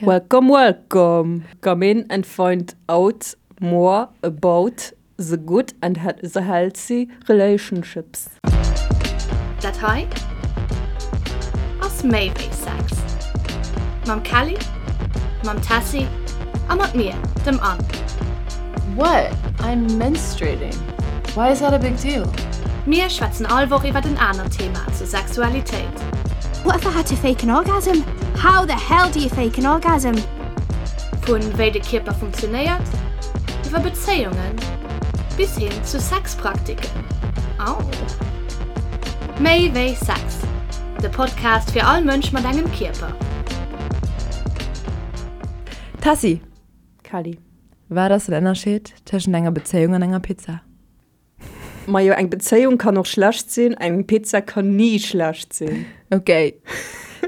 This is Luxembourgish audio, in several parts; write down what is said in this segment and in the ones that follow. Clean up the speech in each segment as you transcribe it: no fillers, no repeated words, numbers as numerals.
Welcome, welcome! Come in and find out more about the good and the healthy relationships. Dat hei ass méi wéi Sex. Mam Kelly, mam Tessy a mat mir, dem Anne. What? I'm menstruating. Why is that a big deal? Mir schwätzen all Woch iwwert en anert Thema zur Sexualitéit. What if I had to fake an orgasm? How the hell do you fake an orgasm? Vun wéi de Kierper funktionéiert, iwwer Bezéiungen bis hin zu Sexpraktiken. Au! Méi wéi Sex, de Podcast fir all Mënsch mat engem Kierper. Tessy! Kelly. Wat ass den Ënnerscheed tëschent enger Bezéiung an enger Pizza? Majo, eng Bezéiung kann och schlecht sinn, eng Pizza kann ni schlecht sinn. Ok,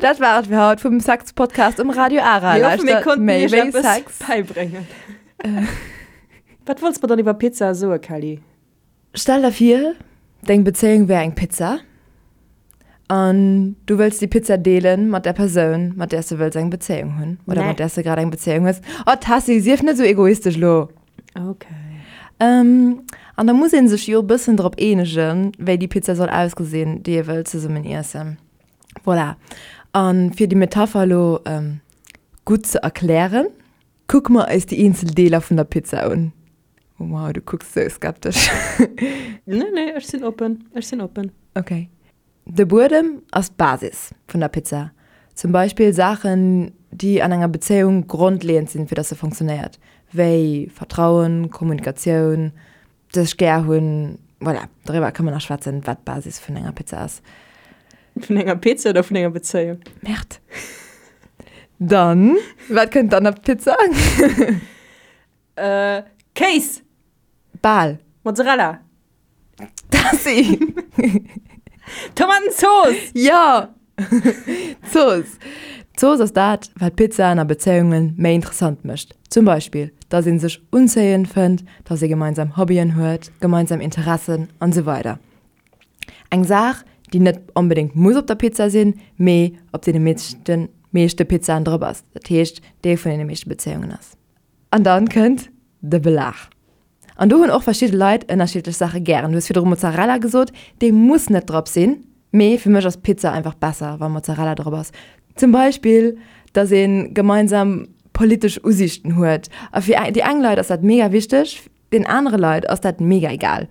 dat war et fir haut vum Sex-Podcast um Radio Ara. Mir hoffen, mir konnten méi iech wéi eppes Sex. bäibréngen. Wat wollts mer dann iwwer Pizzae soe, Kelly? Stell der vir, deng Bezéiung wär eng Pizza an du wëlls déi Pizza deelen mat der Persoun, mat där s de wëlls eng Bezéiung hunn oder mat där s de grad eng Bezéiung hues. Oh Tessy, sief net esou egoistesch elo! Okay. Ähm, an da muss ee sech jo e bëssen drop eenegen, wéi déi Pizza soll ausgesinn, déi ee wëllt zesummen iessen. Voilà. A fir déi Metapher elo gutt ze erklären, kucke mer eis déi eenzel Deeler vun der Pizza un. Wow, du kucks sou skeptesch. Nee, nee, ech sinn oppen. Ech sinn oppen. Okay. De Buedem ass d'Basis vun der Pizza. Zum Beispill Saachen, déi an enger Bezéiung grondleeënd sinn, fir dass se funktionéiert, wéi Vertrauen, Kommunikatioun, sech gär hunn. Voilà, doriwwer ka mer nach schwätzen, wat d'Basis vun enger Pizza ass. Vun enger Pizza oder vun enger Bezéiung? Merde. Dann, wat kënnt dann op d'Pizza? Kéis! Bal. Mozzarella! Tassi! Tomatenzooss! Jo! Zooss! D'Zooss ass dat, wat Pizzaen a Bezéiunge méi interessant mécht. Zum Beispill, dass ee sech unzéiend fënnt, dass ee gemeinsam Hobbyen huet, gemeinsam Interessen an esou weider. Eng Saach, déi net onbedéngt muss op der Pizza sinn, mee op deene meeschten meeschte Pizzaen drop ass, dat heescht Deel vun deene meeschte Bezéiungen ass. An dann kënnt de Belag. An do hunn och verschidde Leit ënnerschiddlech Saache gären. Du hues virdru Mozzarella gesot, dee muss net drop sinn, mee fir mech ass Pizza einfach besser, wa Mozzarella drop ass. Zum Beispill, dass ee gemeinsam politesch Usiichten huet. A fir déi eng Leit ass dat mega wichteg, den anere Leit ass dat mega egal.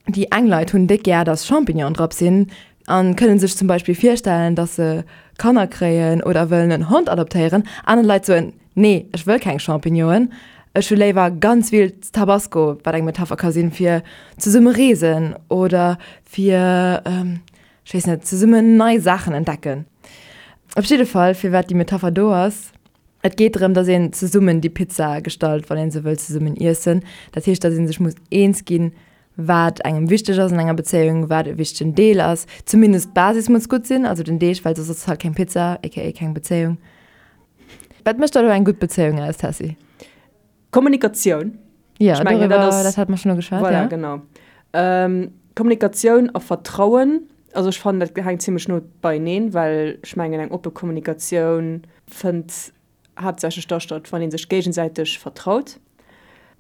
Déi eng Leit hunn déck gär, dass Champignonen drop sinn a kënne sech zum Beispill virstellen, dass se Kanner kréien oder wëllen en Hond adoptéieren. Aner Leit soen, Nee, ech wëll keng Champignonen, ech hu léiwer ganz vill Tabasco, wat eng Metapher ka sinn fir zesumme reesen oder fir, ech weess net, zesummen nei Saachen entdecken. Op jidde Fall, firwat déi Metapher do ass, Et geet drëm, dass een zesummen déi Pizza gestalt, wann ee se wëll zesummen iessen. Dat heescht, dass ee sech muss eens ginn, wat engem wichteg ass an enger Bezéiung, wat e wichtegen Deel ass. Zumindest d'Basis muss gutt sinn, also den Deeg, well soss ass et halt keng Pizza, aka keng Bezéiung. Wat mécht da elo eng gutt Bezéiung aus, Tessy? Kommunikatioun. Ja, Ech mengen, dat doriwwer, ass, dat hat mer schonn ugeschwat, voilà, ja. genau. Ähm, Kommunikatioun a Vertrauen, also ech fannen, dat hänkt zimmlech no beieneen, well ech mengen, eng oppe Kommunikatioun fënnt haaptsächlech da statt, wann ee sech géigesäiteg vertraut.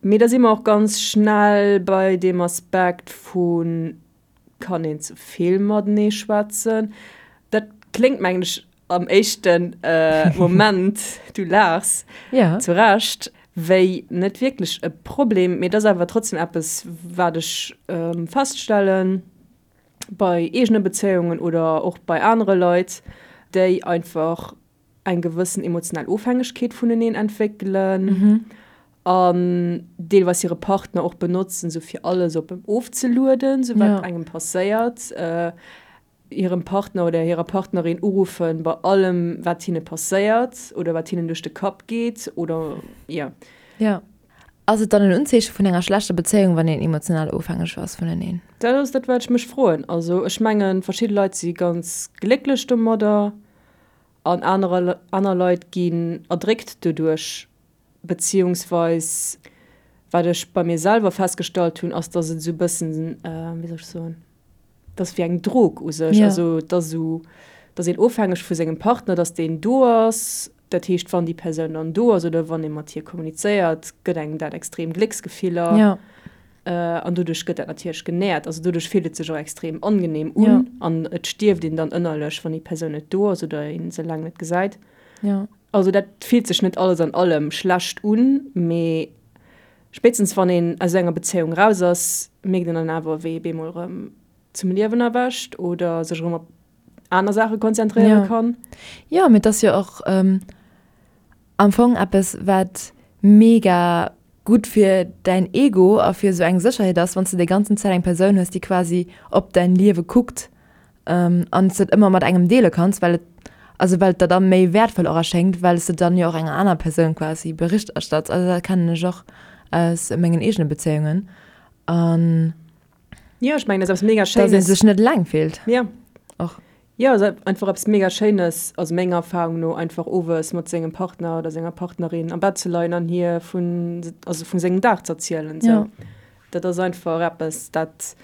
Mee da si mer och ganz schnell bei deem Aspekt vu Kann een ze vill matenee schwätzen? Dat kléngt, mengen ech, am éischte Moment, du laachs, zu Recht, wéi net wierklech e Problem. Mee et ass awer trotzdem eppes, wat ech feststellen bei eegene Bezéiungen oder och bei anere Leit, déi einfach eng gewëssen emotionell Ofhängegkeet vuneneen entwéckelen an deelweis hire Partner och benotzen, sou fir alles op em ofzelueden, sou wat engem passéiert, hirem Partner oder hirer Partnerin uruffen bei allem, wat hinne passéiert oder wat hinnen duerch de Kapp geet oder jo. Jo. Ass et dann en Unzeeche vun enger schlechter Bezéiung, wann een emotional ofhängeg ass vuneneen? Dat ass dat, wat ech mech froen. Also ech mengen, verschidde Leit si ganz glécklech domadder. An anerer aner Leit ginn erdréckt doduerch, beziehungsweis wat ech bei mir selwer festgestallt hunn, ass, dass et esou e bëssen, wéi soll ech soen, dass wéi eng Drog u sech, also et ass esou, dass een ofhängeg vu sengem Partner, dass deen do ass. Dat heescht, wann déi Persoun dann do ass oder wann ee mat hir kommunizéiert, gëtt engem dat extrem Glécksgefiller. Ja. An doduerch gëtt dat natierlech genährt. Also doduerch fillt et sech och extrem angenehm un. Ja. An et stierft een dann ënnerlech, wann déi Persoun net do ass oder ee se laang net gesäit. Ja. Also dat fillt sech net alles an allem schlecht un, mee spéitstens wann een aus enger Bezéiung raus ass, mierkt een dann awer, wéi ee bemol erëm zum Liewen erwächt oder sech erëm op aner Saache konzentréiere Ja. kann. Jo, mee et ass jo och am Fong eppes, wat mega gutt fir däin Ego a fir esou eng Sécherheet ass, wann s de déi ganzen Zäit eng Persoun hues, déi quasi op däin Liewe kuckt an s de et ëmmer mat engem deele kanns, well et, also well et der da méi wäertvoll och erschéngt, well s de dann jo och enger aner Persoun quasi Bericht erstatts. Also dat kennen ech och aus mengen eegene Bezéiungen an. Jo, ech mengen, dat ass eppes mega Schéines. Dass ee sech net eleng fillt. Ja. Och. Jo, ass einfach eppes mega Schéines, also menger Erfahrung no, einfach owes mat sengem Partner oder senger Partnerin am Bett ze leien an hir vun, also vu sengem Dag z'erzielen. Sou. Ja. Dat ass einfach eppes, dat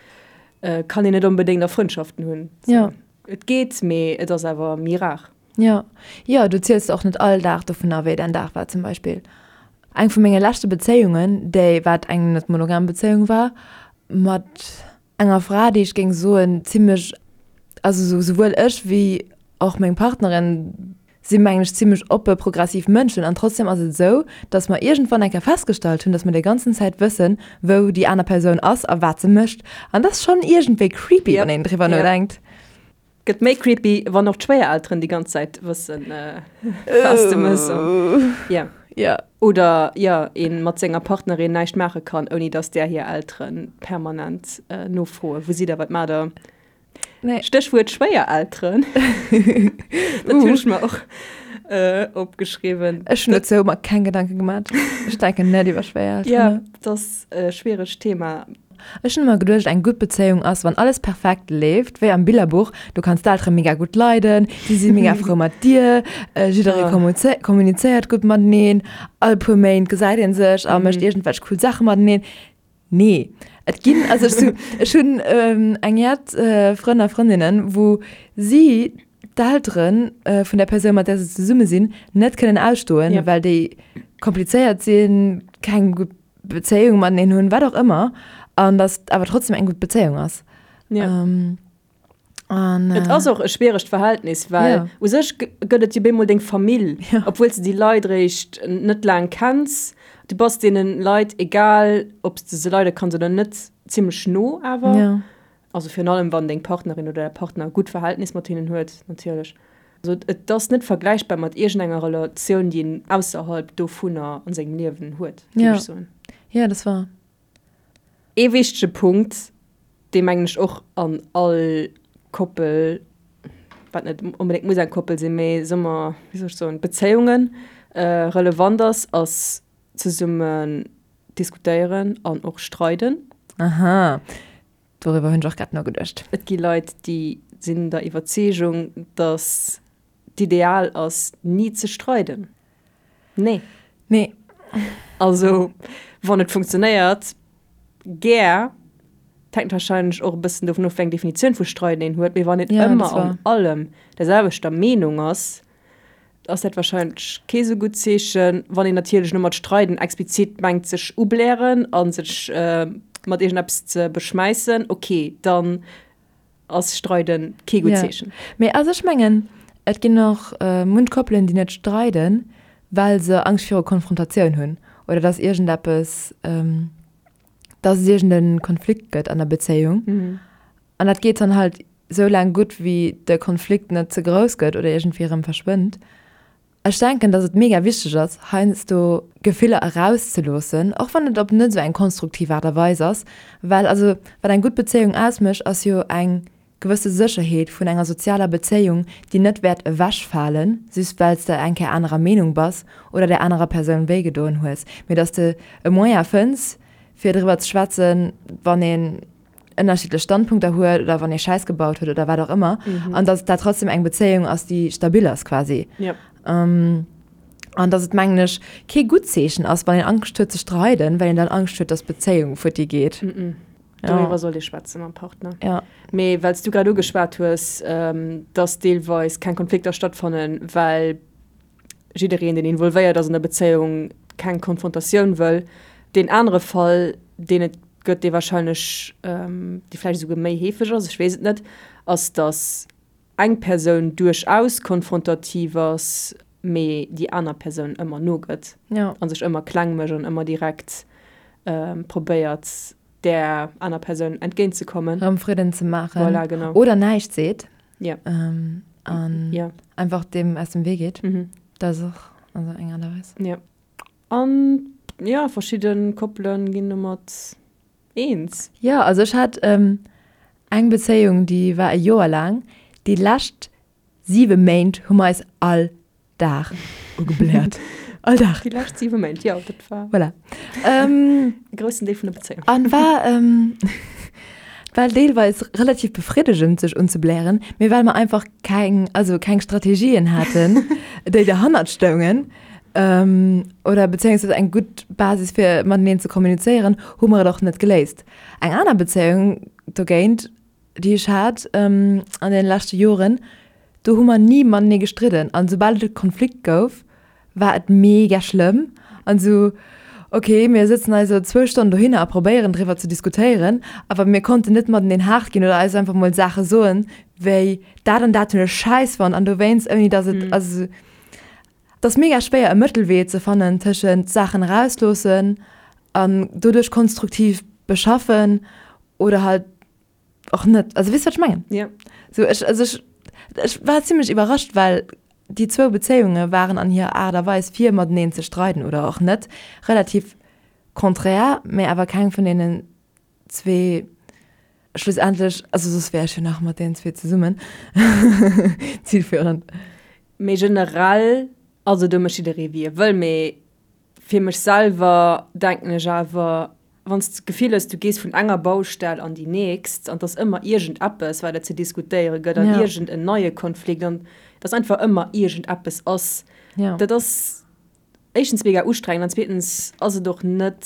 kann een net onbedéngt a Frëndschaften hunn. Sou. Ja. Et geet, mee et ass awer méi rar. Jo, jo, du ziels och net all Dag dovunner, wéi däin Dag war zum Beispill. Eng vu menge leschte Bezéiungen, déi wat eng net monogam Bezéiung war, mat enger Fra, déi ech géing soen zimmlech, also sou souwuel ech wéi och meng Partnerin si mengen ech zimmlech oppe progressiv Mënschen an trotzdem ass et esou, datt mer iergendwann eng Kéier festgestallt hunn, datt mer déi ganzen Zäit wëssen, wou déi aner Persoun ass a wat se mécht an dat ass schonn iergendwéi creepy, wann een driwwer nodenkt. Gëtt méi creepy, wann och d'Schwéierelteren déi ganz Zäit wëssen, was de mëss. Ja. Ja. Oder jo, ee mat senger Partnerin näischt maache kann, ouni datt där hir Eltere permanent nofroen, Wou sidd der, wat maacht der? Nee. Stéchwuert Schwéierelteren. Dat hunn ech mer och opgeschriwwen. Ech hunn dozou mer keng Gedanke gemat. Ech denken net iwwer Schwéierelteren Ja, no. dat ass e schwieregt Thema. Ech hunn ëmmer geduecht, eng gutt Bezéiung ass, wann alles perfekt leeft, wéi am Billerbuch, du kanns d'Eltere mega gutt leiden, si si mega frou mat dir, jidderee kommunizéiert gutt mateneen, all puer Méint gesäit ee sech a mécht iergendwelch cool Saache mateneen. Nee, et ginn, also ech su, ech hunn eng jett Frënn a Frëndinnen, wou si d'Eltere vun der Persoun, mat där se zesumme sinn, net kënnen ausstoen, well déi komplizéiert sinn, keng gutt Bezéiung mateneen hunn, wat och ëmmer, an datt et awer trotzdem eng gutt Bezéiung ass. Ja. Ähm, an, Et ass och e schwieregt Verhältnis, well Ja. u sech gëtt et jo bemol deng Famill, Ja. obwuel s de déi Leit eréischt net laang kenns. Du bass deene Leit, egal ob s de se leide kanns oder net, zimmlech no awer. Ja. Also virun allem wann deng Partnerin oder däi Partner e gutt Verhältnis mat hinnen huet natierlech. Also et ass net vergläichbar mat iergendenger Relatioun, déi een ausserhalb dovunner an sengem Liewen huet, géif ech soen. Jo, dat ass wahr. Ee wichtege Punkt, dee mengen ech och an all Koppel, wat net onbedéngt muss eng Koppel sinn, mee soe mer, wéi soll ech soen, Bezéiungen relevant ass, ass zesummen diskutéieren an och streiden. Aha, Doriwwer hunn ech och grad nogeduecht. Et gi Leit, déi sinn der Iwwerzeegung, datt d'Ideal ass, ni ze streiden. Nee. Nee. Also, wann et funktionéiert, gär. Et hänkt warscheinlech och e bëssen dovun of, wéi eng Definitioun vu streiden een huet. Mee wann een ëmmer an allem der selwechter Meenung ass, ass dat wahrscheinlech kee sou gutt Zeechen. Wann een natierlech elo mat streiden explizit mengt sech ublären a sech mat iergendeppes ze beschmäissen, ok, dann ass streiden kee gutt Zeechen. Mee also ech mengen, et ginn och munch Koppelen, déi net streiden, well se Angscht viru Konfrontatioun hunn oder dass iergendeppes, dass et iergende Konflikt gëtt an der Bezéiung. An dat geet dann halt sou laang gutt, wéi de Konflikt net ze grouss gëtt oder iergendwéi erëm verschwënnt. Ech denken, dass et mega wichteg ass, heiansdo Gefiller erauszeloossen, och wann et op net esou eng konstruktiv Aart a Weis ass, well also wat eng gutt Bezéiung ausmécht, ass jo eng gewësse Sécherheet vun enger sozialer Bezéiung, déi net wäert ewechfalen, just well s de eng Kéier anerer Meenung bass oder där anerer Persoun wéigedoen hues, mee dass de e Moyen fënns, fir driwwer ze schwätzen, wann een ënnerschiddlech Standpunkter huet oder wann ee Schäiss gebaut huet oder wat och ëmmer mhm. an dass dat trotzdem eng Bezéiung ass, déi stabil ass quasi. Ja. Ähm, an dass et mengen ech kee gutt Zeechen ass, wann een Angscht huet ze streiden, well een dann Angscht huet, dass d'Bezéiung futti geet. Mhm. Doriwwer ja. sollt ee schwätze mam Partner. Ja. Mee well s du grad ugeschwat hues, ähm, dass deelweis keng Konflikter stattfannen, well. jiddereen, deen involvéiert ass an der Bezéiung, keng Konfrontatioun wëll. Deen anere Fall, deen et gëtt, dee warscheinlech, dee vläicht esouguer méi heefeg ass, ech weess et net, ass, datt eng Persoun duerchaus konfrontativ ass, mee déi aner Persoun ëmmer nogëtt a sech ëmmer kleng mécht an ëmmer direkt probéiert, där aner Persoun entgéintzekommen. Erëm Fridden ze maachen. Voilà, genau. Oder näischt seet. Ja. An ja. einfach deem aus dem Wee geet. Mhm. Dat ass och also eng Aart a Weis. Ja. An ja, verschidde Koppele ginn domat eens. Ja, also ech hat eng Bezéiung, déi war e Joer laang. Déi lescht 7 Méint hu mer eis all Dag ugebläert. All Dag. Déi lescht 7 Méint, jo, dat war. Voilà. E groussen Deel vun der Bezéiung. An war, war deelweis relativ befriddegend, sech unzeblären, mee well mer einfach keng, also keng Strategien haten, déi derhannert stoungen, oder bezéiungsweis eng gutt Basis fir mateneen ze kommunizéieren, hu mer et och net geléist. Eng aner Bezéiung dogéint, déi ech hat an deene leschte Joren, do hu mer ni matenee gestridden an soubal et e Konflikt gouf, war et mega schlëmm an esou, ok, mir sëtzen eis elo zwou Stonnen dohinner a probéieren driwwer ze diskutéieren, awer mir konnten net mateneen haart ginn oder eis einfach mol Saache soen, wéi dat an dat hunn ech schäiss fonnt an dowéinst, ouni datt et, also et ass mega schwéier e Mëttelwee ze fannen tëschent Saachen erausloossen an doduerch konstruktiv beschaffen oder halt och net. Also weess wat ech mengen? Ja. So ech, also ech, ech war zimmlech iwwerrascht, well déi zwou Bezéiunge waren an hirer Aart a Weis fir mateneen ze streiden oder och net relativ konträr, mä awer keng vun deenen zwee schlussendlech, also soss wär ech jo nach mat deenen zwee zesummen, zielführend. Mee generell, also do mécht jidderee wéi e wëll, mee Fir mech selwer denken ech awer, wann s de d'Gefill hues, du gees vun enger Baustell an déi nächst an 't ass ëmmer iergendeppes, wat et ze diskutéiere gëtt an iergend en neie Konflikt an dass einfach ëmmer iergendeppes ass, dat ass éischtens mega ustrengend an zweetens ass et och net,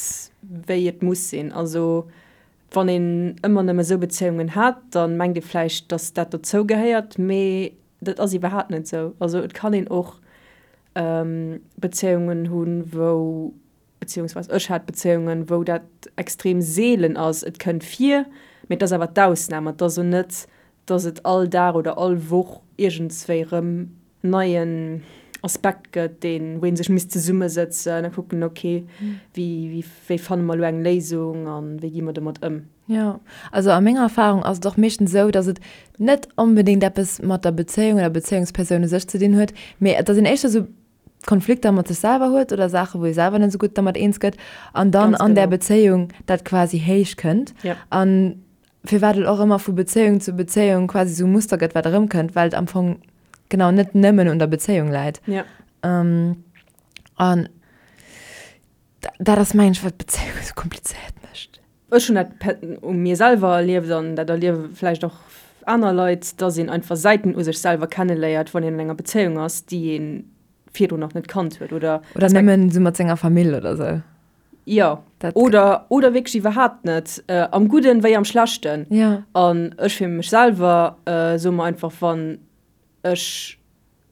wéi et muss sinn. Also wann een ëmmer nëmme esou Bezéiungen hat, da mengt ee vläicht, dass dat dozou gehéiert, mee Dat ass iwwerhaapt net esou. Also et kann een och Bezéiungen hunn, wou, beziehungsweise ech hat Bezéiungen, wou dat extrem seelen ass. Et kënnt vir, mee et ass awer d'Ausnam. Et ass esou net, datt et all Dag oder all Woch iergendswéi erëm neien Aspekt gëtt, deen, wou ee sech misst zesummesëtzen a kucken, ok, wéi, wéi fanne mer elo eng Léisung a wéi gi mer domat ëm. Jo, also a menger Erfahrung ass et och meeschtens esou, dass et net onbedéngt eppes mat der Bezéiung oder Bezéiungspersoun u sech ze dinn huet, mee dass een éischter esou Konflikter mat sech selwer huet oder Saache wou ee selwer net esou gutt dermat eens gëtt an dann an där Bezéiung dat quasi héich kënnt. An firwat et och ëmmer vu Bezéiung zu Bezéiung quasi esou e Muster gëtt wat erëmkënnt, well et am Fong genau net nëmmen un der Bezéiung läit. An dat ass mengen ech wat d'Bezéiung esou komplizéiert mécht. Ech hunn dat u mir selwer erlieft an dat erliewe vläicht och aner Leit, dass een einfach Säiten u sech selwer kenneléiert, wann een an enger Bezéiung ass, déi ee virdrun nach net kannt huet oder. Oder nëmmen esou mat senger Famill oder esou. Jo, oder, oder wierklech iwwerhaapt net, am Gudden wéi am Schlechten. Jo. An ech fir mech selwer soe mer einfach, wann ech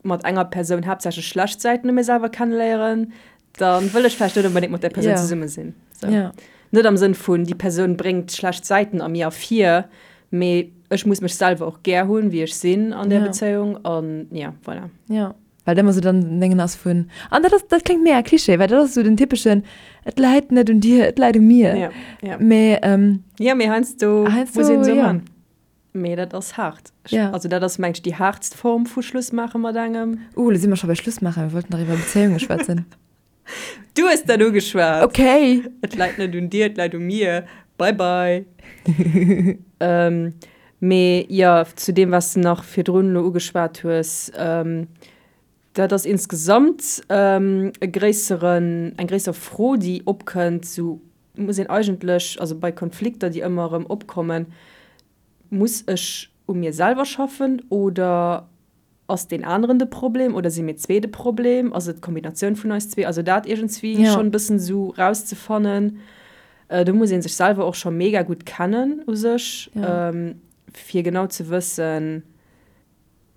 mat enger Persoun haaptsächlech schlecht Säiten u mir selwer kenneléieren, da wëll ech vläicht net onbedéngt mat där Persoun zesumme sinn. Sou. Net am Sënn vun, déi Persoun bréngt schlecht Säiten a mir ervir, mee ech muss mech selwer och gär hunn, wéi ech sinn an där Bezéiung an ja, voilà. Jo, well et ëmmer sou dann den Déngen ass vun, an dat ass, dat kléngt mega Klischee, well dat ass sou den typeschen, et läit net un dir, et läit u mir. Ja, ja. Mee, Ja, mee heiansdo heiansdo, muss een esou jo. man. Mee dat ass haart. Ja. Also dat ass mengt ech déi haartst Form vu Schluss maache mat engem. Uh, lo si mer scho bei Schluss maachen, mir wollten nach iwwer Bezéiunge schwätzen. Du hues dat ugeschwat! Okay. Et läit net un dir, et läit u mir. Bye bye. Mee jo, zu deem wat s de nach virdrun elo ugeschwat hues, dat ass insgesamt e gréisseren, eng gréisser Fro déi opkënnt, sou muss een eigentlech, also bei Konflikter déi ëmmer erëm opkommen, Muss ech u mir selwer schaffen oder ass deen aneren de Problem oder si mir zwee de Problem? Ass et d'Kombinatioun vun eis zwee? Also dat iergendswéi schonn e bëssen esou rauszefannen. Do muss ee sech selwer och scho mega gutt kennen u sech, fir genau ze wëssen.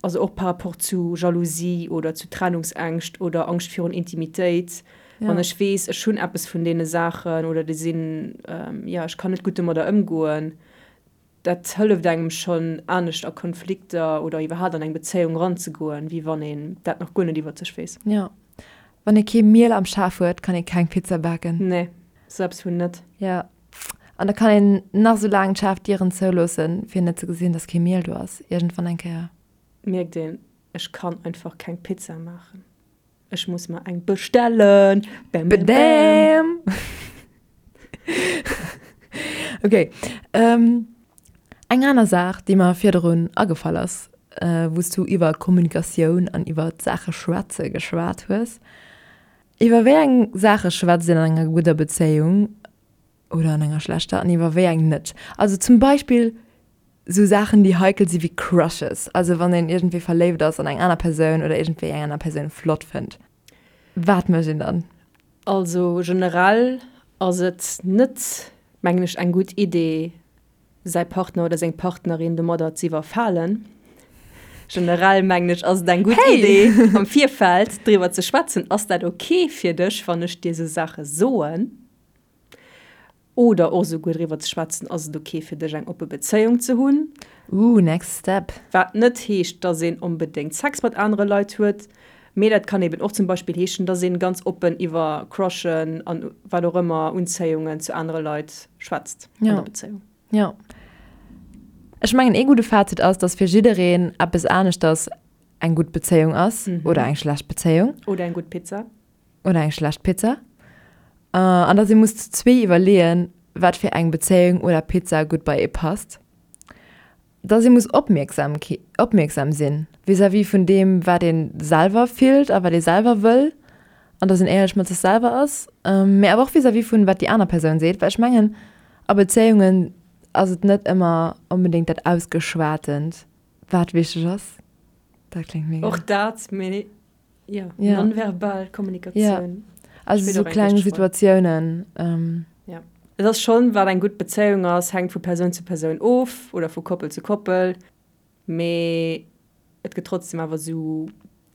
Also och par rapport zu Jalousie oder zu Trennungsängscht oder Angscht virun Intimitéit. Wann ech weess, ech hunn eppes vun deene Saachen oder déi sinn, jo, ech kann net gutt domadder ëmgoen, dat hëlleft engem schonn anescht a Konflikter oder iwwerhaapt an eng Bezéiung eranzegoen, wéi wann een dat nach guer net iwwert sech weess. Jo. Wann ee kee Miel am Schaf huet, kann ee keng Pizza baken. Nee, sou eppes vun net. Jo. An da kann een nach sou laang d'schaarf Dieren zouloossen, fir net ze gesinn, dass kee Miel do ass. Iergendwann eng Kéier. Mierkt een, ech kann einfach keng Pizza maachen. Ech muss mer eng bestellen. Bam, bam, bam. Ok. Eng aner Saach, déi mer virdrun agefall ass, wou s du iwwer Kommunikatioun an iwwer d'Saache schwätze geschwat hues. Iwwer wéi eng Saache schwätzt een an enger gudder Bezéiung oder an enger schlechter an iwwer wéi eng net? Also zum Beispill sou Saachen, déi heikel si wéi Crushes, also wann een iergendwéi verléift ass an eng aner Persoun oder iergendwéi eng aner Persoun flott fënnt. Wat mécht een dann? Also generell ass et net, mengen ech, eng gutt Idee, säi Partner oder seng Partnerin domadder ze iwwerfalen. Generell mengen ech, ass et eng gutt Idee, am Virfeld driwwer ze schwätzen, Ass dat ok fir dech, wann ech dir esou Saache soen? Oder och esouguer driwwer ze schwätzen, Ass et ok fir dech, eng oppe Bezéiung ze hunn? Ooh, next step. Wat net heescht, dass een onbedéngt Sex mat anere Leit huet, mee dat kann eben och zum Beispill heeschen, dass een ganz oppen iwwer Crushen an wat och ëmmer, Unzéiungen zu anere Leit schwätzt an der Bezéiung. Jo. Ech mengen ee gudde Fazit ass, dass fir jiddereen eppes aneschters eng gutt Bezéiung ass oder eng schlecht Bezéiung. Oder eng gutt Pizza. Oder eng schlecht Pizza. An dass ee muss zu zwee iwwerleeën, wat fir eng Bezéiung oder Pizza gutt bei ee passt. Dass ee muss opmierksam opmierksam sinn vis-à-vis vun deem, wat ee selwer fillt a wat ee selwer wëll an dass een éierlech mat sech selwer ass, mee awer och vis-à-vis vun wat déi aner Persoun seet, well ech mengen a Bezéiungen ass et net ëmmer onbedéngt dat Ausgeschwatent, wat wichteg ass. Dat kléngt mega. Och dat, mee Jo, ja. Nonverbal Kommunikatioun. Ja. Also sou kleng Situatiounen. Ähm. Ja. Et ass schonn, wat eng gutt Bezéiung ass, hänkt vu Persoun zu Persoun of oder vu Koppel zu Koppel, mee et gëtt trotzdem awer sou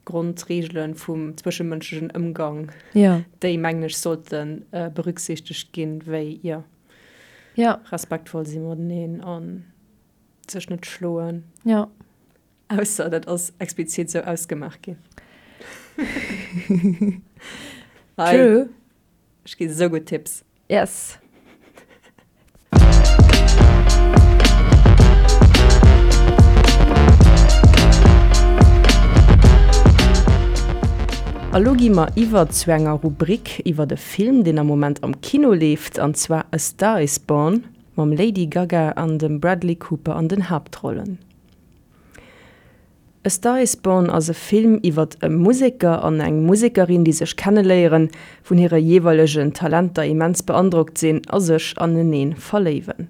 Grondreegele vum zwëschemënschlechen Ëmgang, ja. déi, mengen ech, sollte berücksichtegt ginn, wéi, jo, ja. respektvoll si mateneen a sech net schloen. Ja. Ausser dat ass explizit sou ausgemaach ginn. True. Ech gi sou gutt Tipps. Yes. A lo gi mer iwwer zu enger Rubrik iwwert e Film, deen am Moment am Kino leeft, an zwar A Star Is Born mam Lady Gaga an dem Bradley Cooper an den Haaptrollen. A Star Is Born ass e Film iwwert e Museker an eng Musekerin, déi sech kenneléieren, vun hire jeeweilegen Talenter immens beandrockt sinn a sech anenee verléiwen.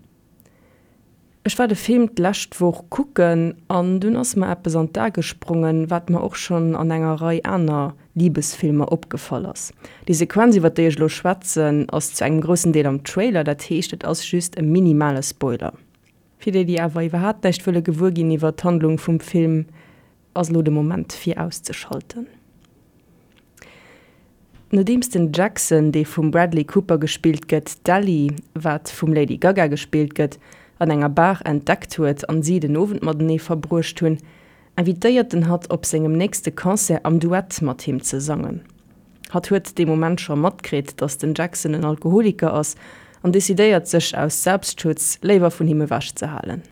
Ech war de Film d'lescht Woch kucken an dunn ass mer eppes an d'A gesprongen, wat mer och schonn an enger Rei aner Libesfilmer opgefall ass. Déi Sequenz, iwwert déi ech elo schwätzen, ass zu engem groussen Deel am Trailer, dat heescht et ass just e minimale Spoiler. Fir déi, déi awer iwwerhaapt näischt wëlle gewuer ginn iwwer d'Handlung vum Film, ass elo de Moment fir auszeschalten. Nodeems den Jackson, dee vum Bradley Cooper gespillt gëtt, d'Ellie, wat vum Lady Gaga gespillt gëtt, an enger Bar entdeckt huet an si den Owend matenee verbruecht hunn, invitéiert en hatt op sengem nächste Concert am Duett mat him ze sangen. Hatt huet dee Moment scho matkritt, datt den Jackson en Alkoholiker ass an decidéiert sech aus Selbstschutz léiwer vun him ewech ze halen.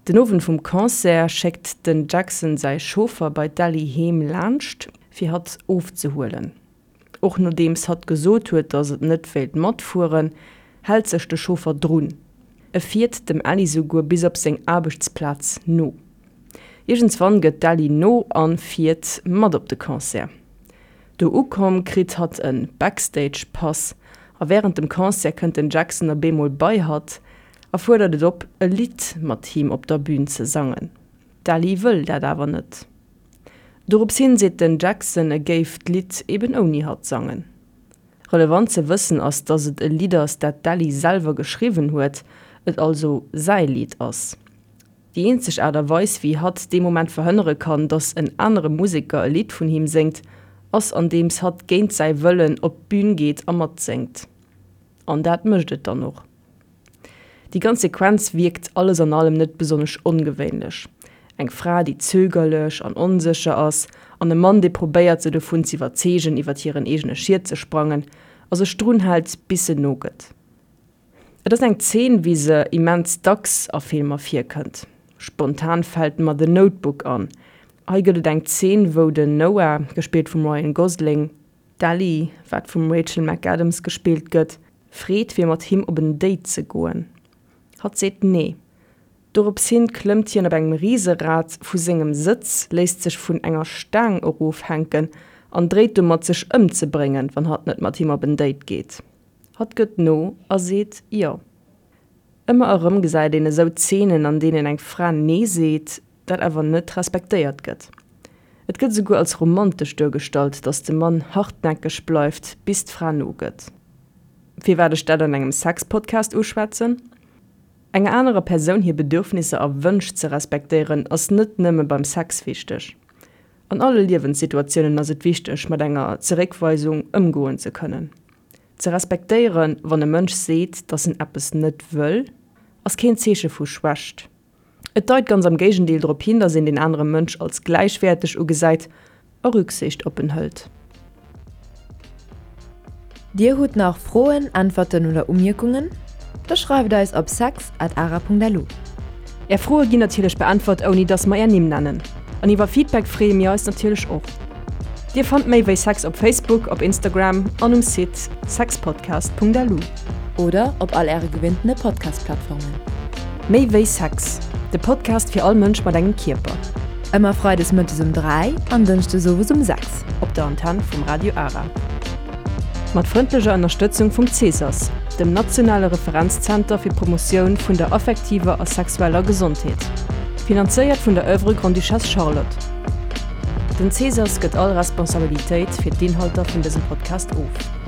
Den Owend vum Concert schéckt den Jackson säi Chauffer bei d'Ellie heem laanscht fir hatt ofzehuelen. Och nodeems hatt gesot huet, datt et net wéilt matfueren, hält sech de Chauffer drun. E fiert dem Ellie souguer bis op seng Aarbechtsplaz no. Iergendswann gëtt d'Ellie no an fiert mat op de Concert. Do ukomm kritt hatt en Backstage Pass a wärend dem Concert kënnt den Jackson op eemol bei hatt a fuerdert et op e Lidd mat him op der Bün ze sangen. D'Ellie wëll dat awer net. Dorops hin seet den Jackson e géif d'Lidd eben ouni hatt sangen. Relevant ze wëssen ass, dass et e Lidd ass dat d'Ellie selwer geschriwwen huet, et also säi Lidd ass. Déi eenzeg Aart a Weis, wéi hatt dee Moment verhënnere kann, datt en anere Museker e Lidd vun him séngt, ass andeems hatt géint säi Wëllen op d'Bün geet a matséngt. An dat mécht et dann och. Déi ganz Sequenz wierkt alles an allem net besonnesch ongewéinlech. Eng Fra, déi zögerlech an onsécher ass, an e Mann, dee probéiert, se dovun z'iwwerzeegen, iwwer hiren eegene Schiet ze sprangen, a sech drun hält, bis se nogëtt. Et ass eng Zeen, wéi se immens dacks a Filmer virkënnt. Spontan fält mer The Notebook an. Hei gëtt et eng Zeen, wou den Noah, gespillt vum Ryan Gosling, d'Ellie, wat vum Rachel McAdams gespillt gëtt, freet fir mat him op en Date ze goen. Hatt seet nee. Dorops hin klëmmt hien op engem Riserad vu sengem Sëtz, léisst sech vun enger Staang erofhänken an dréit domat sech ëmzebréngen, wann hatt net mat him op en Date geet. Hatt gëtt no a seet jo. Ëmmer erëm gesäit een esou Zeenen, an deenen eng Fra nee seet, dat awer net respektéiert gëtt. Et gëtt esouguer als romantesch duergestallt, datt de Mann hartnäckeg bleift, bis d'Fra nogëtt. Firwat ech dat an engem Sex-Podcast uschwätzen? Enger anerer Persoun hir Bedürfnisser a Wënsch ze respektéieren, ass net nëmme beim Sex wichteg. An alle Liewenssituatiounen ass et wichteg, mat enger Zeréckweisung ëmgoen ze kënnen. Ze respektéieren, wann e Mënsch seet, dass en eppes net wëll, ass keen Zeeche vu Schwächt. Et deit ganz am Géigendeel drop hin, dass een den anere Mënsch als gläichwäerteg ugesäit a Rücksicht op en hëlt. Dir hutt nach Froen, Äntwerten oder Umierkungen? Da schreift eis op sex at ara.lu. Är Froe ginn natierlech beäntwert, ouni dass mer är Nimm nennen. An iwwer Feedback freeë mir eis natierlech och. Dir fannt méi wéi Sex op Facebook, op Instagram an um Site sexpodcast.lu. Oder op all äre gewinntene Podcast-Plattformen. Méi wéi Sex, de Podcast fir all Mënsch mat engem Kierper. Ëmmer freides mëttes um 3 an dënschdes owes um 6. Op der Antenn vum Radio Ara. Mat frëndlecher Ënnerstëtzung vum CSAS, dem nationale Referenzzenter fir d'Promotioun vun der affektiver a sexueller Gesondheet. Finanzéiert vun der Oeuvre Grande-Duchesse Charlotte. Den CSAS gëtt all Responsabilitéit fir d'Inhalter vun dësem Podcast of.